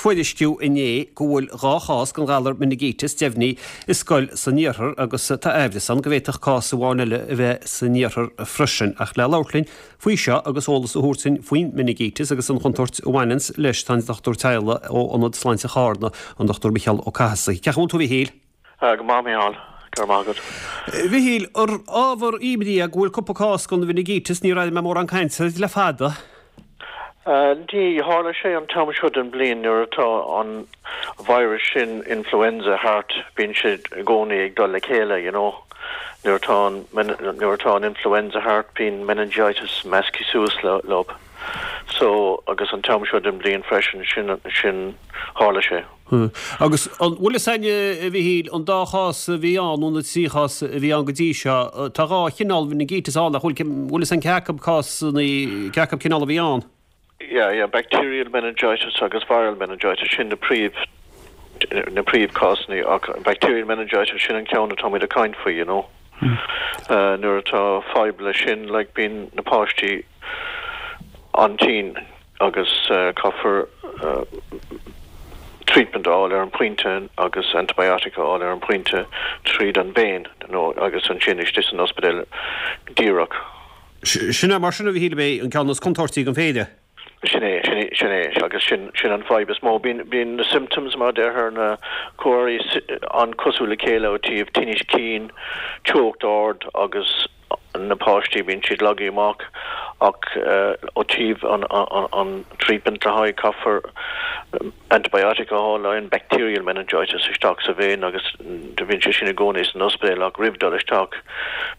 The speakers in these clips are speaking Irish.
tuairisciú inné go bhfuil 2 chás den ghalar meiningíteas deimhnithe i scoil san iarthar agus tá aimhreas ann go bhféadfadh cás amháin eile a bheith san iarthar freisin. Ach le labhairt linn faoi seo agus eolas a thabhairt dúinn faoin meiningíteas agus an chontúirt a bhaineanns leis tá an dochtúir teaghlaigh ó Ionad Sláinte Charna, an Dr Micheál Ó Cathasaigh. Cén chaoi a bhfuil tú a Mhichíl? Go maith, Micheál. Go raibh maith agat. Mhichíl, ar ábhar imní é go bhfuil cúpla cás den mheiningíteas, níor airigh mé mórán cainte air le fada. Ní, tharla sé an t-am seo den bhliain nuair atá an virus sin, influenza, thart, bíonn siad i gcónaí ag dul le chéile, you know. Nuair atá an, nuair atá an influenza thart, bíonn meningitis measctha suas leo. So, agus an t-am seo den bhliain freisin, sin, sin, tharla sé. Agus an bhfuil fhios a'inn, a Mhichíl, an dá chás a bhí ann, nó na trí chás a bhí ann go dtí seo, tá dhá chineál meiningíteas ann, nach bhfuil, bhfuil fhios a'inn cé acu cásanna, cé acu cineál a bhí ann? Yeah, yeah, bacterial meningitis agus viral meningitis, sin na príomh, na príomhchásanna ach bacterial meningitis, sin an ceann atáimid ag caint faoi, you know. Nuair atá fadhb leis sin, like, bíonn na páistí an-tinn. agus caithfear treatment a fháil ar an bpointe agus antibiotic a fháil ar an bpointe tríd an vein nó agus ansin istigh san ospidéal díreach. Sin é mar sin a Mhichíl ab é an ceann is contúirtí den phéire. Sin é, sin é, sin é agus sin, sin an fadhb is mó. Bíonn, bíonn na symptoms mar a deirtear na comharthaí an-cosúil le chéile ó taobh tinnis cinn, teocht ard agus na páistí, bíonn siad lagaithe amach ach ó taobh an treatment le haghaidh, caithfear antibiotic a fháil le haghaidh an bacterial meningitis isteach sa vein agus do bhíonn sé sin i gcónaí san ospidéal ach roimh dul isteach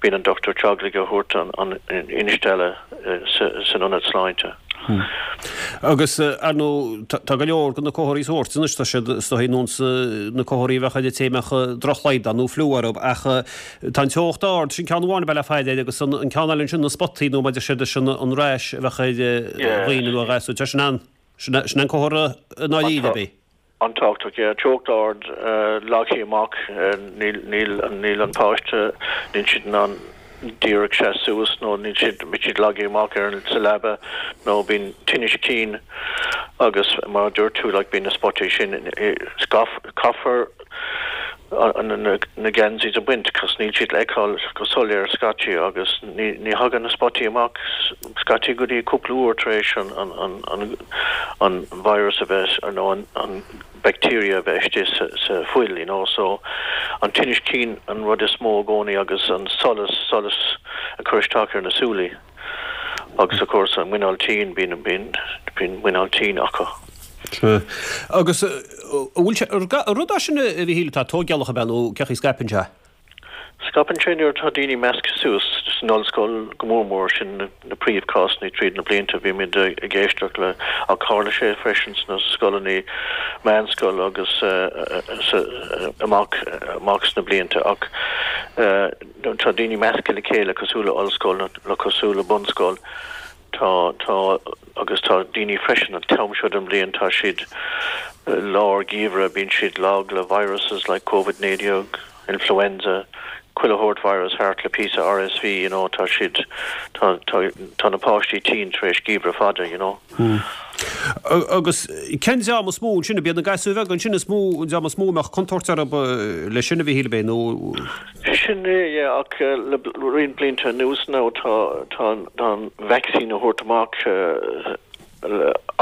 bíonn an dochtúir teaghlaigh a thabhairt an instealladh san ionad sláinte. Agus, ar ndóigh, tá go leor de na comharthaí sóirt anois, tá siad is dóigh ar nós na comharthaí a bheadh ar an té a mbeadh drochshlaghdán nó fliú orthu, ach tá an teocht ard, sin ceann amháin a bheith le faire air, agus an ceann eile ansin, na spotaí nó mar a deir siad, sin an rash a bheadh ar dhaoine nó ar ghasúir, tá sin an, sin an comhartha i ndáiríre, ab é? An-tábhachtach, yeah. Teocht ard, lagaithe amach, níl, níl, níl an páiste, níl siad in ann díreach seas suas nó níl siad, bíonn siad lagaithe amach ar an, sa leaba nó bíonn tinnis cinn agus mar a dúirt tú like bíonn na spotaí sin, caithfear na geansaí a bhaint cos níl siad le feiceáil go soiléir scaití agus ní, ní thagann na spotaí amach scaití go dtí cúpla uair tar éis an, an, an, an an virus a bheith nó an bacteria a bheith istigh sa fuil you know so an tinnis cinn an rud is mó i gcónaí agus an solas, solas ag cur isteach ar na súilí agus of course an muineál tinn, bíonn, bíonn, bíonn muineál tinn acu. Sea. Agus an bhfuil sé, an rud é sin a Mhichíl atá tóigeálach ab ea nó cén chaoi a scaipeann sé? Scaipeann sé nuair atá daoine measctha suas, san ollscoil go mór mór, sin na príomhchásanna tríd na blianta, bhímid ag éisteacht le, ach tharla sé freisin sna scoileanna meánscoil agus amach amach sna blianta ach nuair atá daoine measctha le chéile cosúil le ollscoil nó cosúil le bunscoil, Tá, tá, agus tá daoine freisin an t-am seo den bhliain, tá siad lár geimhreadh, bíonn siad lag le viruses like Covid 19, influenza, chuile shórt virus thart le píosa RSV, you know, tá siad, tá, tá, tá na páistí tinn tar éis geimhreadh fada, you know. Agus cén dream is mó ansin, ab iad na gasúir bheaga ansin is mó, an dream is mó a mbeadh contúirt orthu leis sin a Mhichíl, ab é, nó? Sin é, yeah, ach le roinnt blianta anuas now tá tá tá an vaccine a thabhairt amach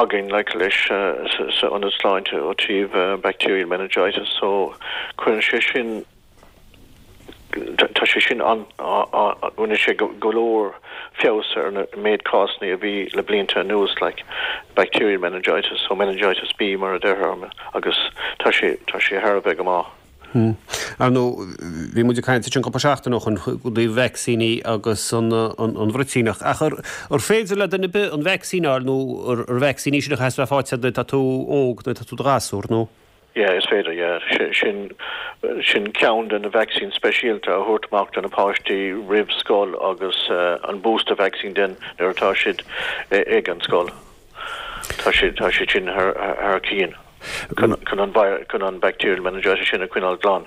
againn like leis sa ionad sláinte ó taobh bacterial meningitis so cuireann sé sin tá sé sin an rinne sé go leor feabhas ar na méid cásanna a bhí le blianta anuas like bacterial meningitis so meningitis B mar a deirtear agus tá sé tá sé thar a bheith go maith. Ar ndóigh, bhí muid ag caint ansin cúpla seachtain ó shin i dtaobh vacsaíní agus an bhruitíneach. Ach ar féidir le duine ar bith an vacsaín a fháil nó ar vacsaín í sin a chaithfeas bheith faighte nuair atá tú óg, nuair atá tú i do ghasúr, nó? Yeah, is féidir, yeah. Sin, sin ceann de na vaccines speisialta a thabhairt amach do na páistí roimh scoil agus an booster vaccine den nuair atá siad ag an scoil. Tá sé, tá sé sin thar, thar cionn chun, chun an, chun an bacterial meningitis sin a choinneáil glan.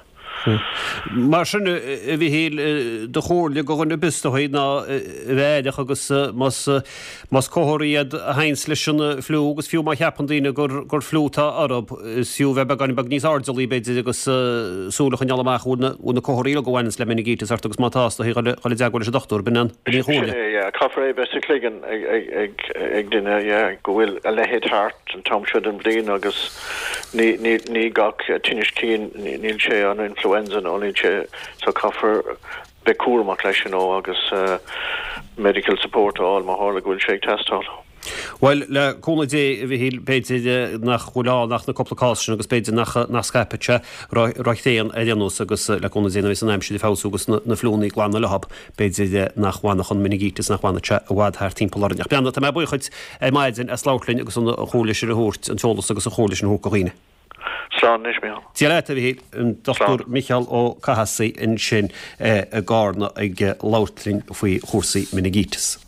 Mar sin, a Mhichíl, do chomhairle do dhuine ar bith is dóigh ná a bheith aireach agus más más comharthaí iad a théanns leis an fliú agus fiú má cheapann daoine gur gur fliú atá orthu, is fiú bheith beagáinín beag níos airdeallaí b'fhéidir agus súil a choinneáil amach an bhfuil na bhfuil na comharthaí uilig a bhaineanns le meiningíteas ort agus má tá, is dóigh dhul i dteagmháil leis an dochtúir, b'in an b'in an chomhairle. Sin é, yeah. Caithfear é bheith sa chloigeann ag ag ag ag duine, yeah, go bhfuil a leithéid thart an t-am seo den bhliain agus Ní, ní, ní gach tinneas cinn, níl sé an influenza nó níl sé, so caithfear bheith cúramach leis you know agus medical support a fháil má tharla go bhfuil sé ag teastáil. Bhuel, le cúnamh Dé, a Mhichíl, b'fhéidir nach bhfuil ann ach na cúpla cás sin agus b'fhéidir nach, nach scaipfidh sé ró-thréan ar aon nós agus le cúnamh Dé nuair a bheas an aimsir ag feabhsú agus na fliúnnaí ag glanadh leothab, B'fhéidir nach bhfanfadh an meiningíteas, nach bhfanfadh sé i bhfad thart timpeall orainn. Ach breathnaigh, tá mé buíoch dhuit ar maidin as labhairt linn agus an chomhairle sin a thabhairt, an t-eolas agus an chomhairle sin a thabhairt do dhaoine. Slán anois, Mícheál. Dia leat, a Mhichíl. An Dr Micheál Ó Cathasaigh ansin i gCarna ag labhairt linn faoi chúrsaí meiningíteas.